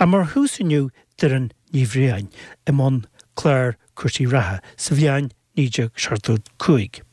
Ach mar thús inniu Doireann Ní Bhriain i mbun clár cúrsaí reatha sa bhliain 1975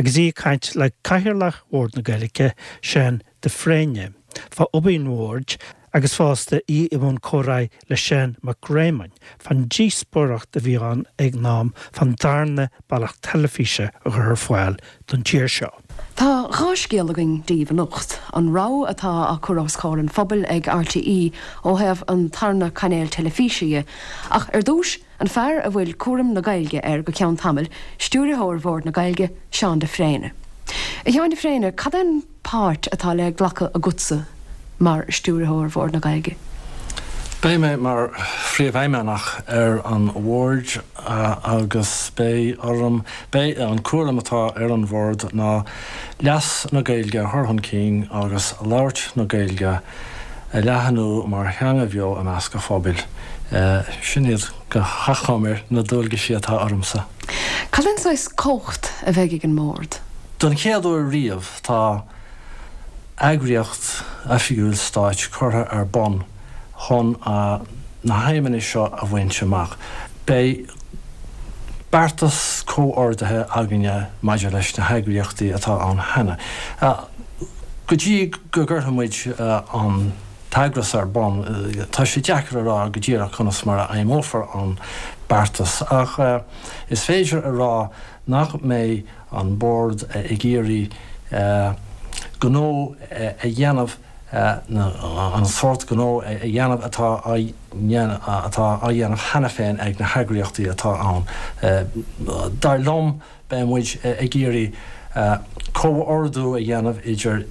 agus í ag caint le Cathaoirleach Bhord na Gaeilge, Seán de Fréine, fá obair an Bhoird agus fosta í i mbun comhráidh le Seán Mac Réamoinn fán díospóireacht a bhí ann ag an am fán darna bealach teilifíse a chur ar fáil don tír seo. Tá 2 scéal againn daoibh anocht, an rabhadh atá á cur os comhair an phobail ag RTÉ ó thaobh an tarna cainéal teilifíse dhe, ach ar dtús, an fear a bhfuil cúram na Gaeilge air go ceann tamaill, Stiúrthóir Bhord na Gaeilge, Seán de Fréine. A Sheáin de Fréine, cad é an páirt atá le glacadh agatsa mar Stiúrthóir Bhord na Gaeilge? Beidh mé mar Phríomhfheidhmeannach ar an Bhord agus beidh orm, beidh an cúram atá ar an Bhord ná leas na Gaeilge a chur chun cinn agus labhairt na Gaeilge a leathnú mar theanga bheo i measc an phobail. Sin iad go hachomair na dualgaisí atá ormsa. Cad é an saghas cumhacht a bheidh ag an mBord? Don chéad uair riamh tá eagraíocht oifigiúil stáit curtha ar bun chun na haidhmeanna seo a bhaint amach. Beidh beartas comhordaithe againne maidir leis na heagraíochtaí atá ann cheana. Go dtí go gcuirfidh muid an t-eagras ar bun, tá sé deacair a rá go díreach conas mar a fheidhmeofar an beartas, ach is féidir a rá nach mbeidh an Bord ag iarraidh gnó a dhéanamh, an sórt gnó a dhéanamh atá á atá á dhéanamh cheana féin ag na heagraíochtaí atá ann. Dar liom, beidh muid ag iarraidh comhordú a dhéanamh idir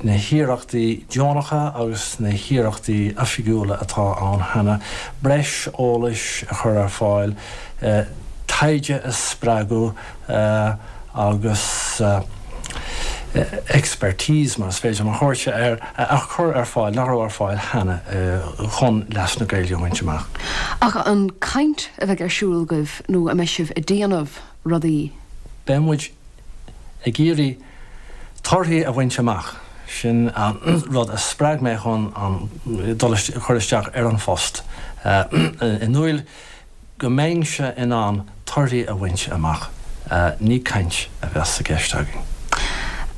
na hiarrachtaí deonacha agus na hiarrachtaí oifigiúla atá ann cheana, breis eolais a chur ar fáil, taighde a spreagadh, agus expertise, mar is féidir liom a thabhairt air, a chur ar fáil nach raibh ar fáil cheana chun leas na Gaeilge a bhaint amach. Ach an caint a bheidh ar siúl agaibh nó an mbeidh sibh ag déanamh rudaí? Beidh muid ag iarraidh torthaí a bhaint amach. Sin an rud a spreag mé chun an dul chur isteach ar an phost. I ndúil go mbeinnse in ann torthaí a bhaint amach, ní caint a bheas i gceist againn.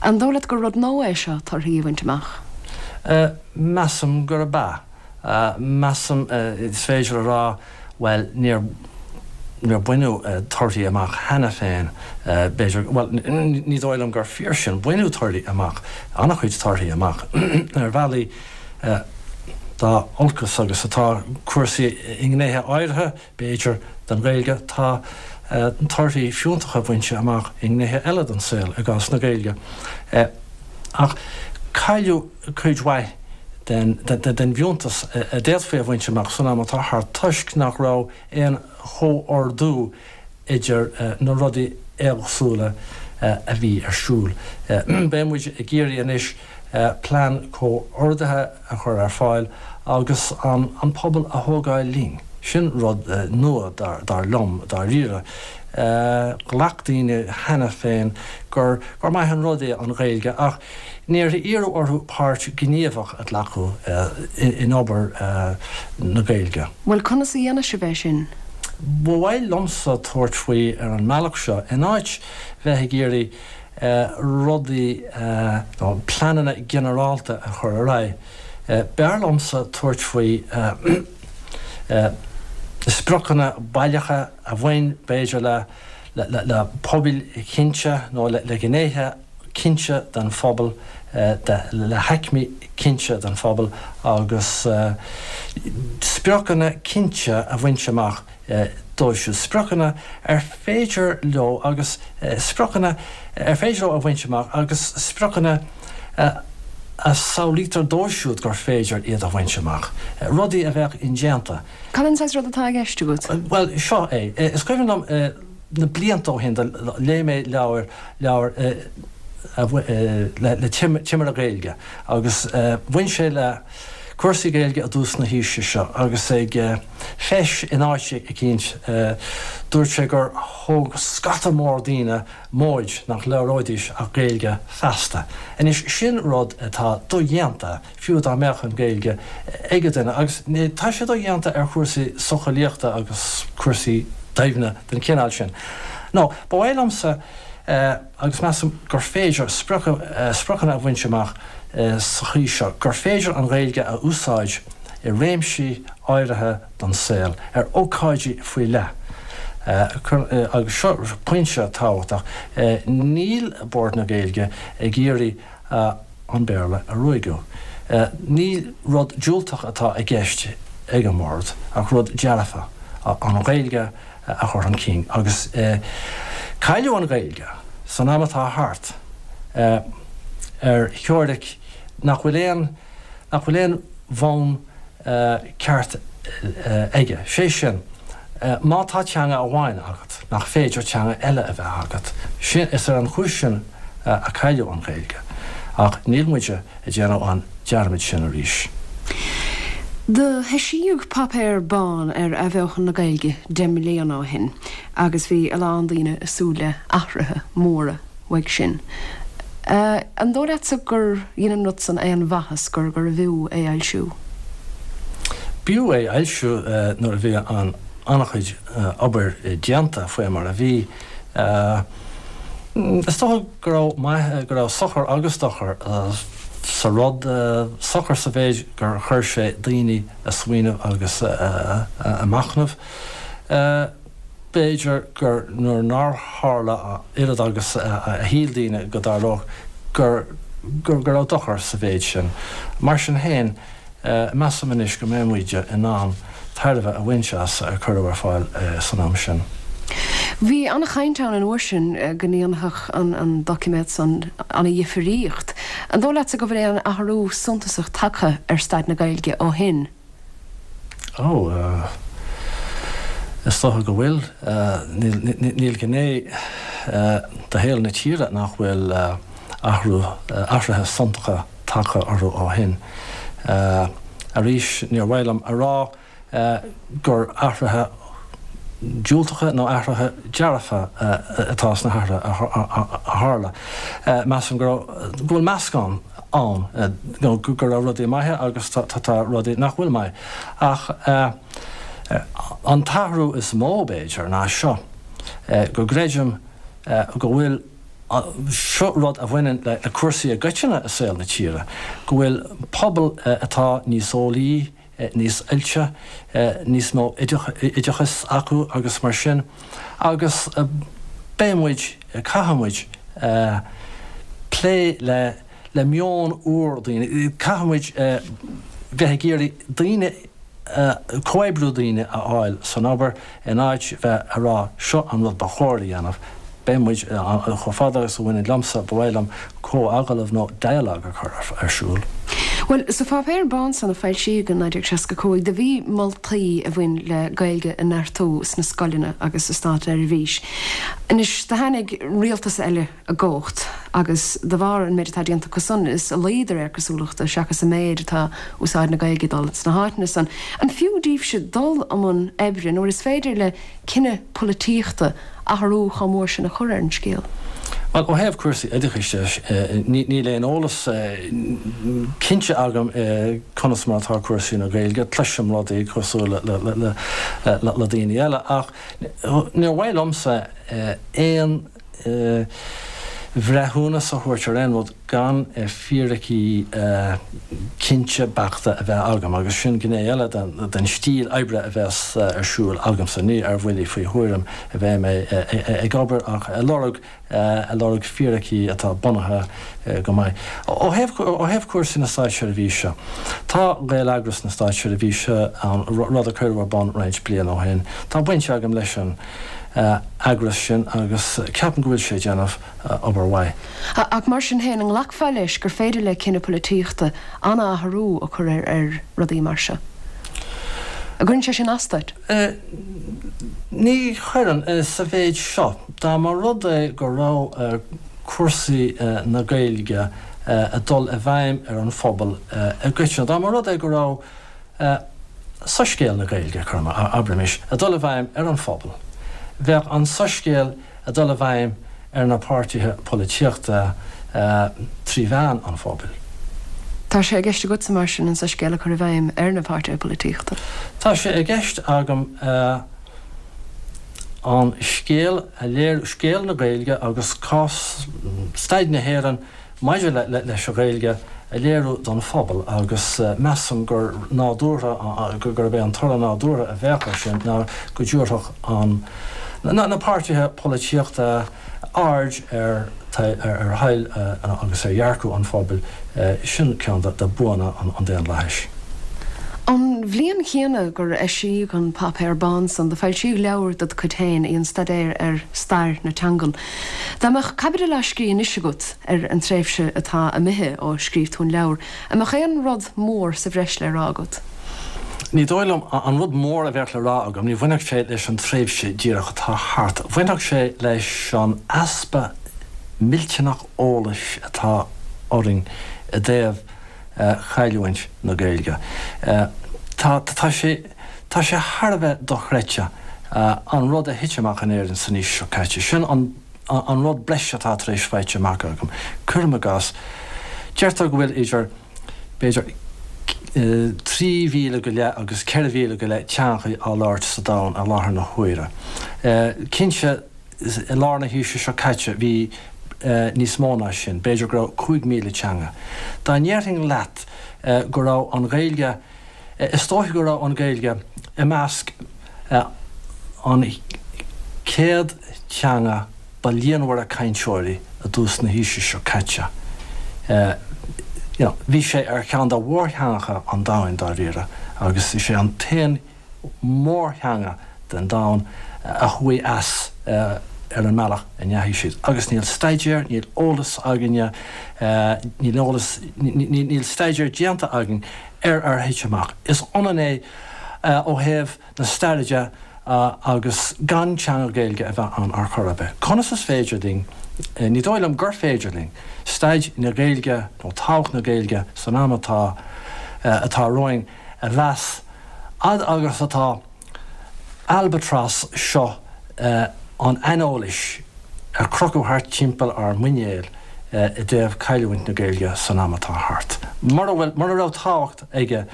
An dóigh leat gur rud nua é seo, torthaí a bhaint amach? Measaim gurb ea. Measaim, is féidir a rá, bhuel, níor, níor baineadh torthaí amach cheana féin, b'fhéidir, bhuel, ní dóigh liom gur fíor sin, baineadh torthaí amach, an-chuid torthaí amach, ar bhealaí. Dá olcas agus atá cúrsaí i ngnéithe áirithe, b'fhéidir, den Ghaeilge, tá torthaí fiúntacha bainte amach i ngnéithe eile den saol i gcás na Gaeilge. Ach cailleadh cuid mhaith den bhfiúntas a d'fhéadfaí a bhaint amach san am atá thart toisc nach raibh aon chomhordú idir na rudaí éagsúla a bhí ar siúl. Beidh muid ag iarraidh anois plean comhordaithe a chur ar fáil agus an pobal a thógáil linn. Sin rud nua, dar liom, dáiríre. Ghlac daoine cheana féin gur maith an rud é an Ghaeilge ach níor iarradh orthu páirt ghníomhach a ghlacadh in obair na Gaeilge. Bhuel, conas a dhéanfaidh sibh é sin? Ba mhaith liomsa tabhairt faoi ar an mbealach seo, in áit bheith ag iarraidh rudaí nó pleananna ginearálta a chur ar aghaidh, b'fhearr liomsa tabhairt faoi spriocanna baileacha a bhain, b'fhéidir, le pobail chinnte nó le gnéithe cinnte den phobal, le haicmí cinnte den phobal agus spriocanna cinnte a bhaint amach dóibh siúd, spriocanna ar féidir leo agus spriocanna ar féidir leo a bhaint amach agus spriocanna a samhlaítear dóibh siúd gur féidir iad a bhaint amach, rudaí a bheadh indéanta. Cad é an saghas rud atá i gceist agat? Bhuel, seo é. Is cuimhin liom na blianta ó shin, léigh mé leabhar, leabhar le timire Gaeilge agus bhain sé le. cúrsaí Gaeilge i dtús na haoise seo agus ag feis in áit eicínt dúirt sé gur thóg scata mór daoine móid nach labhróidís ach Gaeilge feasta. Anois sin rud atá dodhéanta fiú dá mbeadh an Ghaeilge ag an duine agus tá sé dodhéanta ar chúrsaí socheolaíochta agus cúrsaí doimhne den chineál sin. Nó ba mhaith liomsa agus measaim gur féidir spriocanna a bhaint amach sa chaoi seo, gur féidir an Ghaeilge a úsáid i réimsí áirithe den saol, ar ócáidí faoi leith. Agus seo pointe tábhachtach, níl Bord na Gaeilge ag iarraidh an Béarla a ruaigeadh. Ní rud diúltach atá i gceist ag an mBord ach rud dearfa, an Ghaeilge a chur chun cinn. Agus cailleadh an Ghaeilge san am atá thart ar theoiric nach bhfuil aon nach bhfuil aon bhonn ceart aige. Sé sin, má tá teanga amháin agat, nach féidir teanga eile a bheith agat. Sin, is ar an chúis sin a cailleadh an Ghaeilge. Ach níl muide ag déanamh an dearmad sin arís. Do heisíodh Páipéar Bán ar athbheochan na Gaeilge 10 mbliana ó shin agus bhí a lán daoine ag súil le athruithe móra uaidh sin. An dóigh leatsa gur dhein an rud san aon mhaitheas, gur gurbh fhiú é a fhoilsiú? B'fhiú é a fhoilsiú nuair a bhí an an-chuid obair déanta faoi mar a bhí. Is dócha go raibh maith, go raibh sochar agus dochar sa rud, sochar sa mhéid gur chuir sé daoine a smaoineamh agus a machnamh. B'fhéidir gur nuair nár tharla a oiread agus a shíl daoine go dtarlódh, gur go raibh dochar sa mhéid sin. Mar sin féin, measaim anois go mbeidh muid in ann tairbhe a bhaint as ar cuireadh ar fáil san am sin. Bhí an-chaint ann an uair sin go ndéanfadh an doiciméad san ana-dhifríocht. An dóigh leatsa go bhfuil aon athrú suntasach tagtha ar staid na Gaeilge ó shin? Ó, is dócha go bhfuil. Níl gné de shaol na tíre nach bhfuil athrú, athruithe suntacha tagtha orthu ó shin. Arís, níor mhaith liom a rá gur athruithe diúltacha nó athruithe dearfa atá sna hathruithe a tharla. Measaim go raibh, go bhfuil meascán ann, nó go raibh rudaí maithe agus tá rudaí nach bhfuil maith. Ach an t-athrú is mó, b'fhéidir, ná seo, go gcreidim go bhfuil, seo rud a bhaineann le cúrsaí i gcoitinne i saol na tíre, go bhfuil pobal atá níos eolaí, níos oilte, níos mó oideachais acu agus mar sin agus beidh muid, caithfidh muid plé le le meon úr daoine, caithfidh muid bheith ag iarraidh daoine, comhoibriú daoine a fháil san obair In áit bheith a rá seo an rud ba chóir a dhéanamh, beidh muid, chomh fada agus a bhaineann liomsa, ba mhaith liom comhagallamh nó dialogue a chur ar siúl. Bhuel, sa pháipéar bán san a foilsíodh in 1965, do bhí moltaí a bhain le Gaeilge a neartú sna scoileanna agus sa státseirbhís. Anois, do tháinig rialtas eile i gcumhacht agus de bharr an méid atá déanta acu san, is i laghad de réir cosúlachta seachas i méid atá úsáid na Gaeilge ag dul sna háiteanna san. An fiú daoibhse dul i mbun oibre nuair is féidir le cinneadh polaitíochta athrú chomh mór sin a chur ar an scéal? Bhuel, ó thaobh cúrsaí oideachais de, níl aon eolas cinnte agam conas mar atá cúrsaí na Gaeilge. Cloisim rudaí cosúil le daoine eile ach níor mhaith liomsa aon bhreithiúnas a thabhairt ar aon rud gan fíricí cinnte beachta a bheith agam, agus sin gné eile den stíl oibre a bheas ar siúl agamsa. Ní ar bhuillí faoi thuairim a bheidh mé ag obair ach ag lorg ag lorg fíricí atá bunaithe go maith. Ó thaobh ó thaobh cúrsaí na státseirbhíse, tá Gaeleagras na Státseirbhíse ann, rud a cuireadh ar bun roinnt bliain ó shin. Tá baint agam leis an. eagras sin agus ceapaim go bhfuil sé ag déanamh obair mhaith. Ach mar sin féin, an nglacfá leis gur féidir le cinneadh polaitíochta an-athrú a chur ar rudaí mar seo? An gcuireann sé sin as duit? Ní chuireann, sa mhéid seo. Dá mba rud é go raibh cúrsaí na Gaeilge. ag dul i bhfeidhm ar an phobal i gcoitinne. Dá mba rud é go raibh soiscéal na Gaeilge, abraimis, ag dul i bhfeidhm ar an phobal, bheadh an soiscéal ag dul i bhfeidhm ar na páirtithe polaitíochta trí mheán an phobail. Tá sé i gceist agatsa, mar sin, an soiscéal a chur i bhfeidhm ar na páirtithe polaitíochta? Tá sé i gceist agam an scéal a léiriú, scéal na Gaeilge agus cás, staid na hÉireann maidir leis an Ghaeilge a léiriú don phobal agus measaim gur nádúrtha, gurb é an toradh nádúrtha a bheadh air sin ná go dtabharfadh an, na páirtithe polaitíochta aird ar ar thoil agus ar dhearcadh an phobail. Sin ceann de buanna an daonlathais. An bhliain chéanna gur eisíodh an Páipéar Bán san, do foilsíodh leabhar ded chuid féin, í an Staidéar ar Stair na Teangan. Dá mbeadh caibidil á scrí anois agat ar an tréimhse atá imithe ó scríobh tú an leabhar, an mbeadh aon rud mór sa bhreis le rá agat? Ní dóigh liom. An rud mór a bheadh le rá agam, ní bhainfeadh sé leis an tréimhse díreach atá thart. Bhainfeadh sé leis an easpa millteanach eolais atá orainn i dtaobh chailliúint na Gaeilge. Tá, tá sé, tá sé thar a bheith dochreidte an rud a thit amach in Éirinn san aois seo caite. Sin an, an rud breise atá tar éis faighte amach agam. Cuirim i gcás, deirtear go bhfuil idir, b'fhéidir, 3,000 go leith agus 4,000 go leith teangacha á labhairt sa domhan i láthair na huaire. Cinnte, i lár na haoise seo caite bhí níos mó ná sin, b'fhéidir go raibh 5,000 teanga. Dá ndéarfainn leat go raibh an Ghaeilge, is dóiche go raibh an Ghaeilge i measc an 100 teanga ba líonmhaire cainteoirí i dtús na haoise seo caite. You know, bhí sé ar cheann de mhórtheangacha an domhain dáiríre agus is é an t-aon mórtheanga den domhan a chuaigh as ar an mbealach a ndeachaigh siad. Agus níl staidéar, níl eolas againne, níl eolas, níl staidéar déanta againn ar ar thit amach. Is ionann é ó thaobh na staire de agus gan teanga Gaeilge a bheith ann ar chor ar bith. Conas is féidir linn, ní dóigh liom gur féidir linn, staid na Gaeilge nó tábhacht na Gaeilge san am atá atá romhainn a mheas fhad agus atá albatras seo an aineolais ar crochadh thart timpeall ár muinéil i dtaobh cailliúint na Gaeilge san am atá thart. Mura bhfuil, mura raibh tábhacht aige,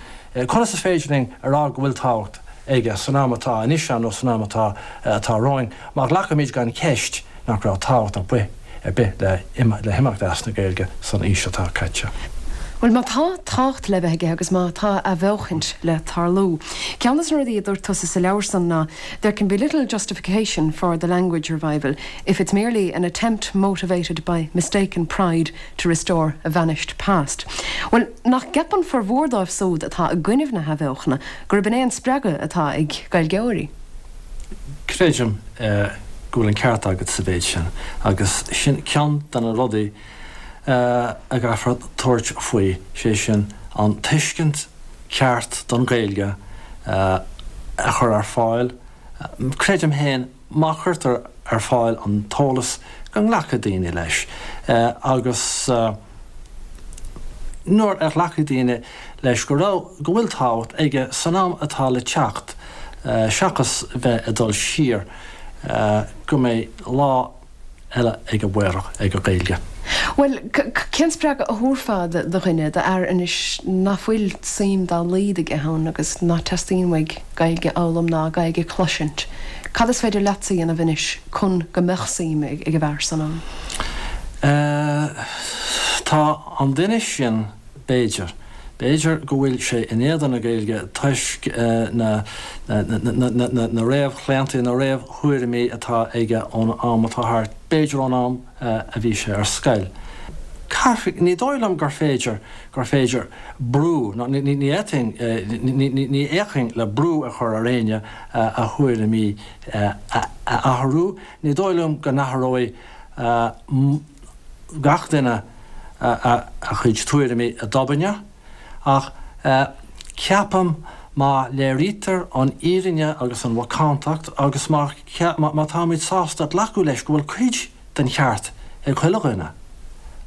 conas is féidir linn a rá go bhfuil tábhacht aige san am atá anois ann nó san am atá atá romhainn má ghlacaimid gan cheist nach raibh tábhacht ar bith ar bith le le himeacht as na Gaeilge san aois atá caite. Bhuel, má tá tábhacht le bheith aige agus má tá athbheochaint le tarlú, ceann de na rudaí a dúirt tusa sa leabhar san ná There can be little justification for the language revival if it's merely an attempt motivated by mistaken pride to restore a vanished past. Bhuel, nach gceapann formhór dóibh súd atá i gcoinnibh na hathbheochana gurb in é an spreagadh atá ag Gaeilgeoirí? Creidim go bhfuil an ceart agat sa mhéid sin, agus sin ceann de na rudaí a gcaithfear tabhairt faoi, sé sin, an tuiscint ceart don Ghaeilge a chur ar fáil. Creidim féin, má chuirtear ar fáil an t-eolas, go nglacfaidh daoine leis, agus nuair a ghlacfaidh daoine leis go raibh, go bhfuil tábhacht aige san am atá le teacht, seachas bheith ag dul siar, go mbeidh lá eile ag an amárach ag an Ghaeilge. Bhuel, cén spreagadh a thabharfá do dhuine, d'fhear anois ná fuil suim dá laghad aige ann agus ná teastaíonn uaidh Gaeilge a fhoghlaim ná Gaeilge a chloisint? Cad is féidir leatsa a dhéanamh anois chun go mbeadh suim ag an bhfear san ann? Tá an duine sin, b'fhéidir, b'fhéidir go bhfuil sé in éadan na Gaeilge toisc na na réamhchlaontaí, na réamhthuairimí atá aige ón am atá thart, b'fhéidir ón am a bhí sé ar scoil. Caithfidh, ní dóigh liom gur féidir, gur féidir brú, nó ní fhéadfainn, ní fhéachfainn le brú a chur ar éinne a thuairimí a athrú. Ní dóigh liom go n-athróidh gach duine a chuid tuairimí i dtobainne, ach ceapaim má léirítear an fhírinne agus an mhacántacht agus má má táimid sásta glacadh leis go bhfuil cuid den cheart ag chuile dhuine.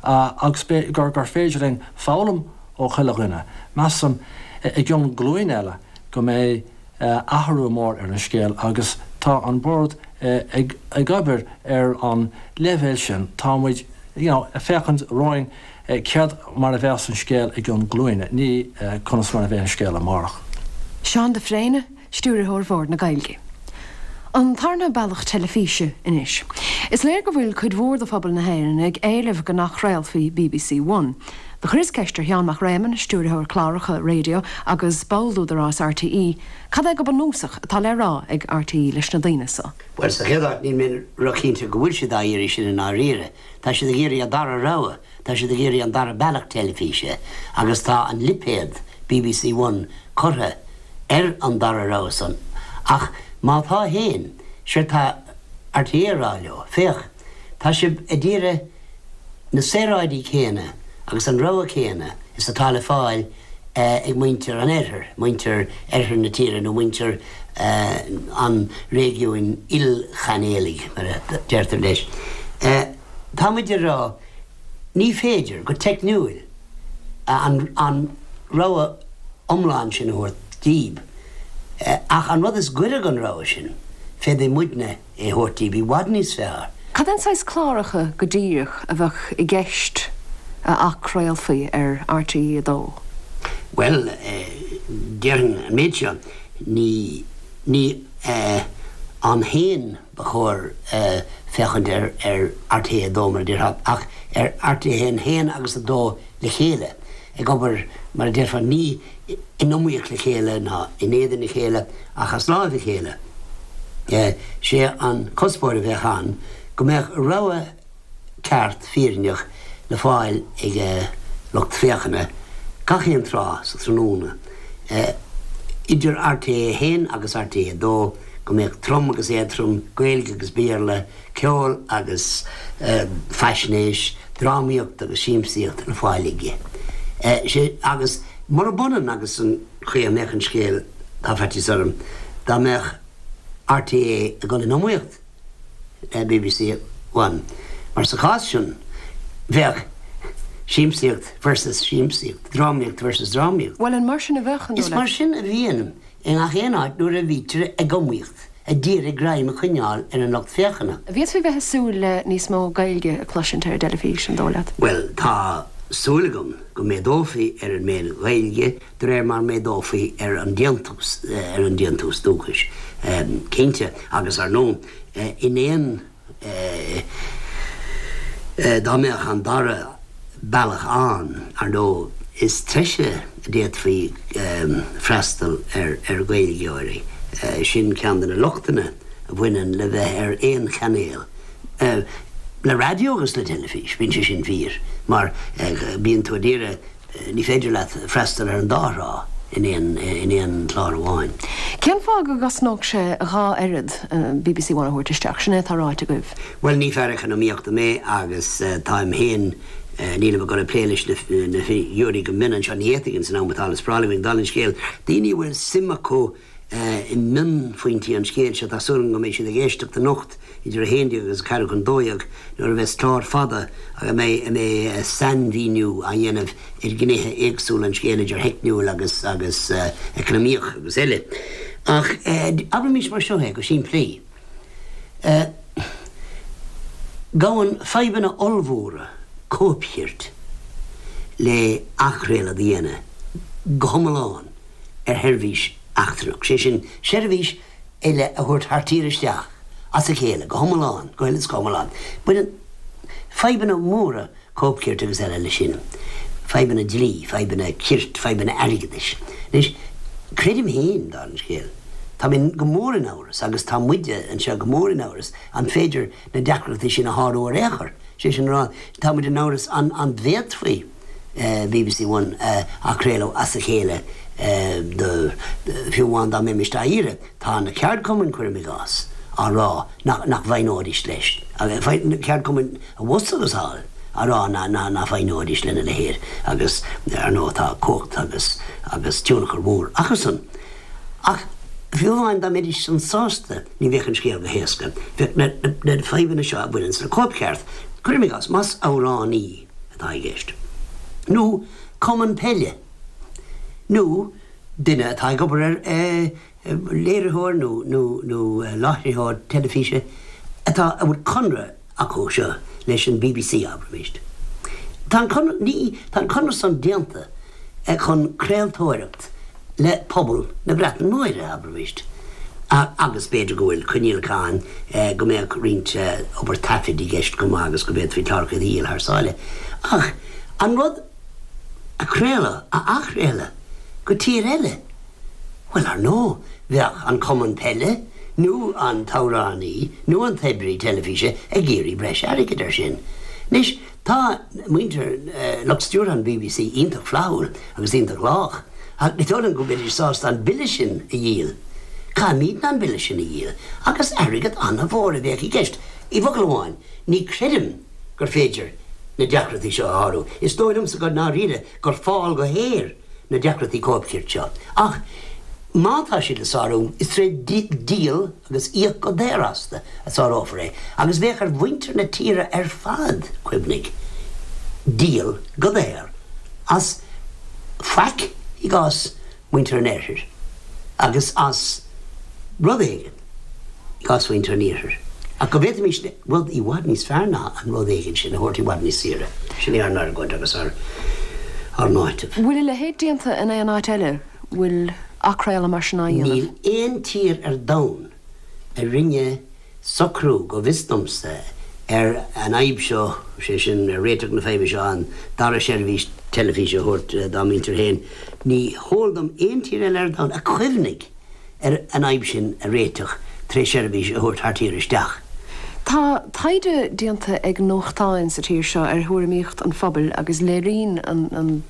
Agus gur gur féidir linn foghlaim ó chuile dhuine. Measaim, i gcionn glúin eile, go mbeidh athrú mór ar an scéal agus tá an Bord ag obair ar an leibhéal sin. Tá muid, you know, ag féachaint romhainn céard mar a bheas an scéal i gcionn glúine, ní conas mar a bheidh an scéal amárach. Seán de Fréine, Stiúrthóir Bhord na Gaeilge. An tarna bealach teilifíse anois. Is léir go bhfuil cuid mhór de phobal na hÉireann ag éileamh go n-athchraolfaí bbc One. Do chuireas ceist ar Sheán Mac Réamoinn, Stiúrthóir Cláracha Raidió agus ball d'Údarás RTÉ, cad é go bunúsach atá le rá ag RTÉ leis na daoine so. Bhuel, sa chéad áit, níl mé róchinnte go bhfuil siad á iarraidh sin i ndáiríre. Tá siad ag iarraidh an dara rogha, tá siad ag iarraidh an dara bealach teilifíse agus tá an lipéad bbc One curtha ar an dara rogha san. Ach má tá féin, séard tá RTÉ a rá leo, féach, tá sibh a d'iarraidh na saoráidí céanna agus an rogha céanna is atá le fáil ag muintir an oirthir, muintir oirthear na tíre nó muintir an réigiúin ilchainéalaigh, mar a deirtear leis. Tá muid a rá, ní féidir, go teicniúil, an rogha iomlán sin a thabhairt díb, ach an rud is gaire don rogha sin, féadfaidh muidne é a thabhairt díb i bhfad níos fearr. Cad é an saghas cláracha go díreach a bheadh i gceist a athchraolfaí ar RTÉ 2? Bhuel, déarfainn an méid seo, ní, ní ann féin ba chóir féachaint ar RTÉ 2, mar a déarfá, ach ar RTÉ 1, 1 agus 2 le chéile, ag obair, mar a déarfá, ní in iomaíocht le chéile ná in éadan a chéile, ach as láimh a chéile. Sé an cuspóir a bheadh ann go mbeadh rogha ceart fírinneach le fáil ag lucht féachana gach aon tráth sa tráthnóna, idir RTÉ 1 agus RTÉ 2, go mbeadh trom agus éadtrom, Gaeilge agus Béarla, ceol agus faisnéis, drámaíocht agus siamsaíocht le fáil aige. Sé, agus murab ionann agus an chaoi a mbeadh an scéal, tá faitíos orm, dá mbeadh RTÉ ag dul in iomaíocht le bbc One, mar sa chás sin, bheadh siamsaíocht versus siamsaíocht, drámaíocht versus drámaíocht. Bhuel, an mar sin a bheadh, an dóigh leat? Is mar sin a bhíonn i ngach aon áit nuair a bhítear ag iomaíocht, a d'iarraidh greim a choinneáil ar an lucht féachana. An bhféadfaí bheith ag súil le níos mó Gaeilge a chloisint ar an dteilifís, an dóigh leat? Bhuel, tá súil agam go méadófaí ar an méid Ghaeilge de réir mar méadófaí ar an déantús, ar an déantús dúchais, cinnte, agus ar ndóigh, in aon. Dá mbeadh an dara bealach ann, ar ndóigh, is treise a d'fhéadfaí freastal ar Ghaeilgeoirí. Sin ceann de na lochtanna a bhaineann le bheith ar aon chainéal. Le raidió agus le teilifís, bíonn sé sin fíor, mar bíonn tú a d'iarraidh Ní féidir leat freastal ar an dá thrá in aon chlár amháin. Cén fáth go gcosnódh sé dhá oiread bbc One a thabhairt isteach? Sin é atá ráite agaibh. Bhuel, ní fear eacnamaíochta mé agus táim féin, nílim ag dul ag plé leis na figiúirí go mion anseo, ní fhéadfainn san am atá le spáráil againn, dála an scéil, daoine a bhfuil suim acu i mionphointí an scéil seo. Tá súil agam go mbeidh siad ag éisteacht anocht idir 11 agus 11:45 nuair a bheas clár fada a mbeidh a mbeidh sainmhíniú á dhéanamh ar ghnéithe éagsúla an scéil idir theicniúil agus agus eacnamaíoch agus eile. Ach abraimis mar seo é go simplí. Gabhann fadhbanna ollmhóra cóipchirt le athchraoladh a dhéanamh go hiomlán. ar sheirbhís eachtrannach, sé sin, seirbhís eile a thabhairt thar tír isteach as a chéile go hiomlán, go huile is go hiomlán. Baineann fadhbanna móra cóipchirt agus eile leis sin, fadhbanna dlí, fadhbanna cirt, fadhbanna airgeadais. Anois, creidim féin, dála an scéil, tá mé go mór in amhras, agus tá muide anseo go mór in amhras, an féidir na deacrachtaí sin a shárú ar aon chor. Sé sin a rá, tá muid in amhras an bhféadfaí bbc One a athchraoladh as a chéile do, fiú amháin dá mbeimis á iarraidh. Tá na ceardchumainn, cuirim i gcás, á rá nach bhfoighneoidís leis, na ceardchumainn abhus agus thall á rá nach bhfoighneoidís lena leithéid agus, ar ndóigh, tá cumhacht agus agus tionchar mhór acusan. Ach fiú amháin dá mbeidís san sásta, ní bheadh an scéal go héasca. Bheadh na fadhbanna seo a bhaineanns le cóipcheart, cuirim i gcás, más amhránaí. atá i gceist, nó cumann peile, nó duine atá ag obair ar léiritheoir nó nó nó láithreoir teilifíse atá a bhfuil conradh acu seo leis an bbc, abraimis. Tá an conradh ní tá an conradh san déanta chun craoltóireacht le pobal na Breataine Móire, abraimis, agus b'fhéidir go bhfuil coinníollacha ann go mbeadh roinnt obair taifid i gceist chomh maith agus go bhféadfaí cláracha a dhíol thar sáile. Ach an rud a chraoladh, a athchraoladh go tír eile, bhuel, ar ndóigh, bheadh an cumann peile nó an t-amhránaí nó an t-oibrí teilifíse ag iarraidh breis airgid air sin. Anois, Tá muintir lucht stiúrtha an bbc iontach flaithiúil agus iontach lách, ach ní dóigh liom go mbeidís sásta an bille sin a dhíol. Caithfimidne an bille sin a dhíol, agus airgead an-mhór a bheadh i gceist. I bhfocal amháin, ní chreidim gur féidir na deacrachtaí seo a shárú. Is dóigh liomsa go ndáiríre gur fál go haer na deacrachtaí cóipchirt seo. Ach má tá siad le sárú, is tré dhíol agus íoc go daor astu a sárófar é. Agus bheadh ar mhuintir na tíre ar fad, cuimhnigh, díol go daor as faic i gcás mhuintir an Oirthir agus as rud éigin i gcás mhuintir an Iarthair. Ach go bhféadfaimis rud i bhfad níos fearr ná an rud éigin sin a thabhairt i bhfad níos saoire. Sin é ár n-argóint agus ár n-áiteamh. Bhfuil a leithéid déanta in aon áit eile? Bhfuil athchraoladh mar sin á dhéanamh? Níl aon tír ar domhan a rinne socrú, go bhfios domsa, ar an fhadhb seo, sé sin, ar réiteach na faidhbe seo, an dara seirbhís teilifíse a thabhairt dá muintir féin. Ní heol dom aon tír eile ar domhan a chuimhnigh ar an fhadhb sin a réiteach tré sheirbhís a thabhairt thar tír isteach. Tá taighde déanta ag nuachtáin sa tír seo ar thuairimíocht an phobail agus léiríonn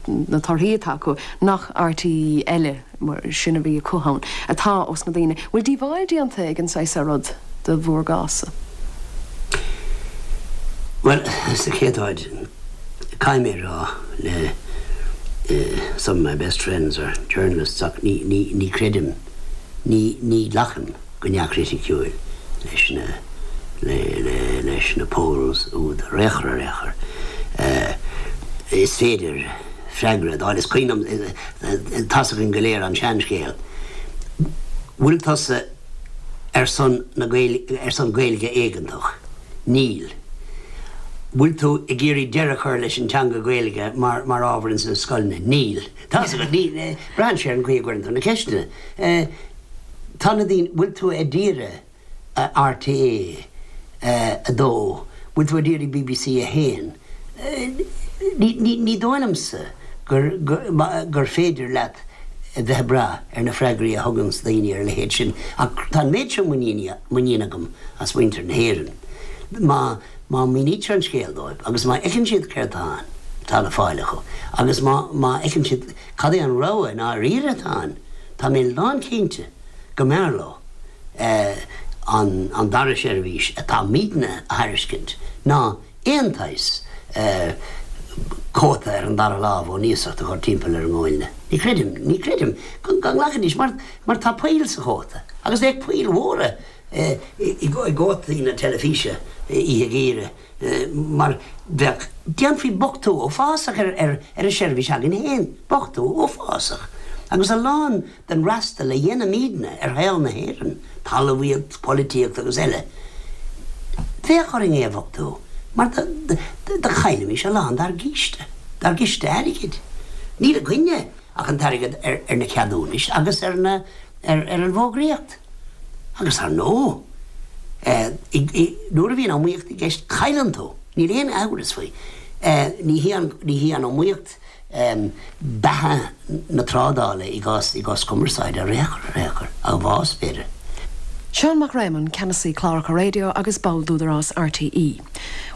na torthaí atá acu nach RTÉ eile, mar sin a bhí acu ann, atá ós na daoine. Bhfuil díobháil déanta ag an saghas seo rud do bhur gcás-sa? Bhuel, sa chéad áit, Caithfidh mé a rá le some of my best friends are journalists ach ní, ní, ní chreidim, ní, ní ghlacaim go neamhchriticiúil leis na, le, le, leis na polls úd ar aon chor, ar aon chor. Is féidir freagra a d'fháil, is cuimhin liom, tá's againn go léir an seanscéal, bhfuil tusa ar son na Gaeilge, ar son Gaeilge éigeantach? Níl. Bhfuil tú ag iarraidh deireadh a chur leis an teanga Gaeilge mar mar ábhar ins na scoileanna? Níl. Tá's agat, ní, braitheann sé ar an gcaoi a gcuireann tú na ceisteanna. Tá na daoine, bhfuil tú ag iarraidh RTÉ 2, bhfuil tú ag iarraidh bbc 1? Ní, ní, ní dóigh liomsa gur, gur, gur féidir leat a bheith ag brath ar na freagraí a thuganns daoine ar a leithéid sin. Ach tá an méid seo muiníne agam as muintir na hÉireann. Má, má mhínítear an scéal dóibh agus má fheiceann siad céard atá ann, atá le fáil acu, agus má, má fheiceann siad cad é an rogha i ndáiríre atá ann, tá mé lánchinnte go mb'fhearr leo an, an dara seirbhís atáimidne a thairiscint ná aon tsaghas cóta ar an dara lámh ón iasacht a chur timpeall ar a nguailne. Ní chreidim, ní chreidim go nglacfaidís mar, mar tá poill sa chóta agus bheadh poill mhóra i gcótaí na teilifíse oíche gheimhridh mar bheadh, déanfaí bochtú uafásach ar ar an seirbhís againn féin, bochtú uafásach. Agus a lán den fhreastal a dhéanaimidne ar shaol na hÉireann, talmhaíocht, polaitíocht agus eile, bheadh orainn é a bhochtú mar do chaillfimis a lán dár gciste, dár gciste airgid. Níl againne ach an t-airgead ar na ceadúnais agus ar na, ar an bhfógraíocht. Agus ar ndóigh, nuair a bhíonn iomaíocht i gceist, cailleann tú, níl aon amhras faoi. Ní hí an, ní hí an iomaíocht beatha na trádála i gcás, i gcás cumarsáide ar aon chor, ar aon chor, ach bás, b'fhéidir. Seán Mac Réamoinn, Ceannasaí Cláracha Raidió agus ball d'Údarás RTÉ.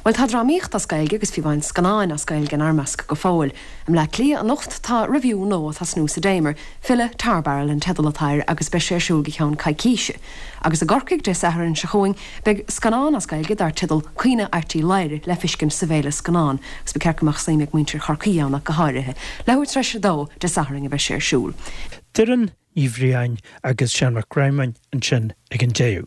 Bhuel, tá drámaíocht as Gaeilge agus fiú amháin scannáin as Gaeilge inár measc go fóill. I mBleá Cliath anocht tá revue nua ag tosnú sa Damer, Filleadh Tar Barrel an teideal atá air agus beidh sé ar siúl go ceann coicíse. Agus i gCorcaigh Dé Sathairn seo chugainn beidh scannán as Gaeilge dar teideal Caoineadh Airt Uí Laoghaire le feiscint sa bhFéile Scannán agus ba cheart go mbeadh suim ag muintir Chorcaí ann ach go háirithe. Leathuair tar éis a dó Dé Sathairn a bheidh sé ar siúl. Doireann Ní Bhriain agus Seán Mac Réamoinn ansin ag an deireadh.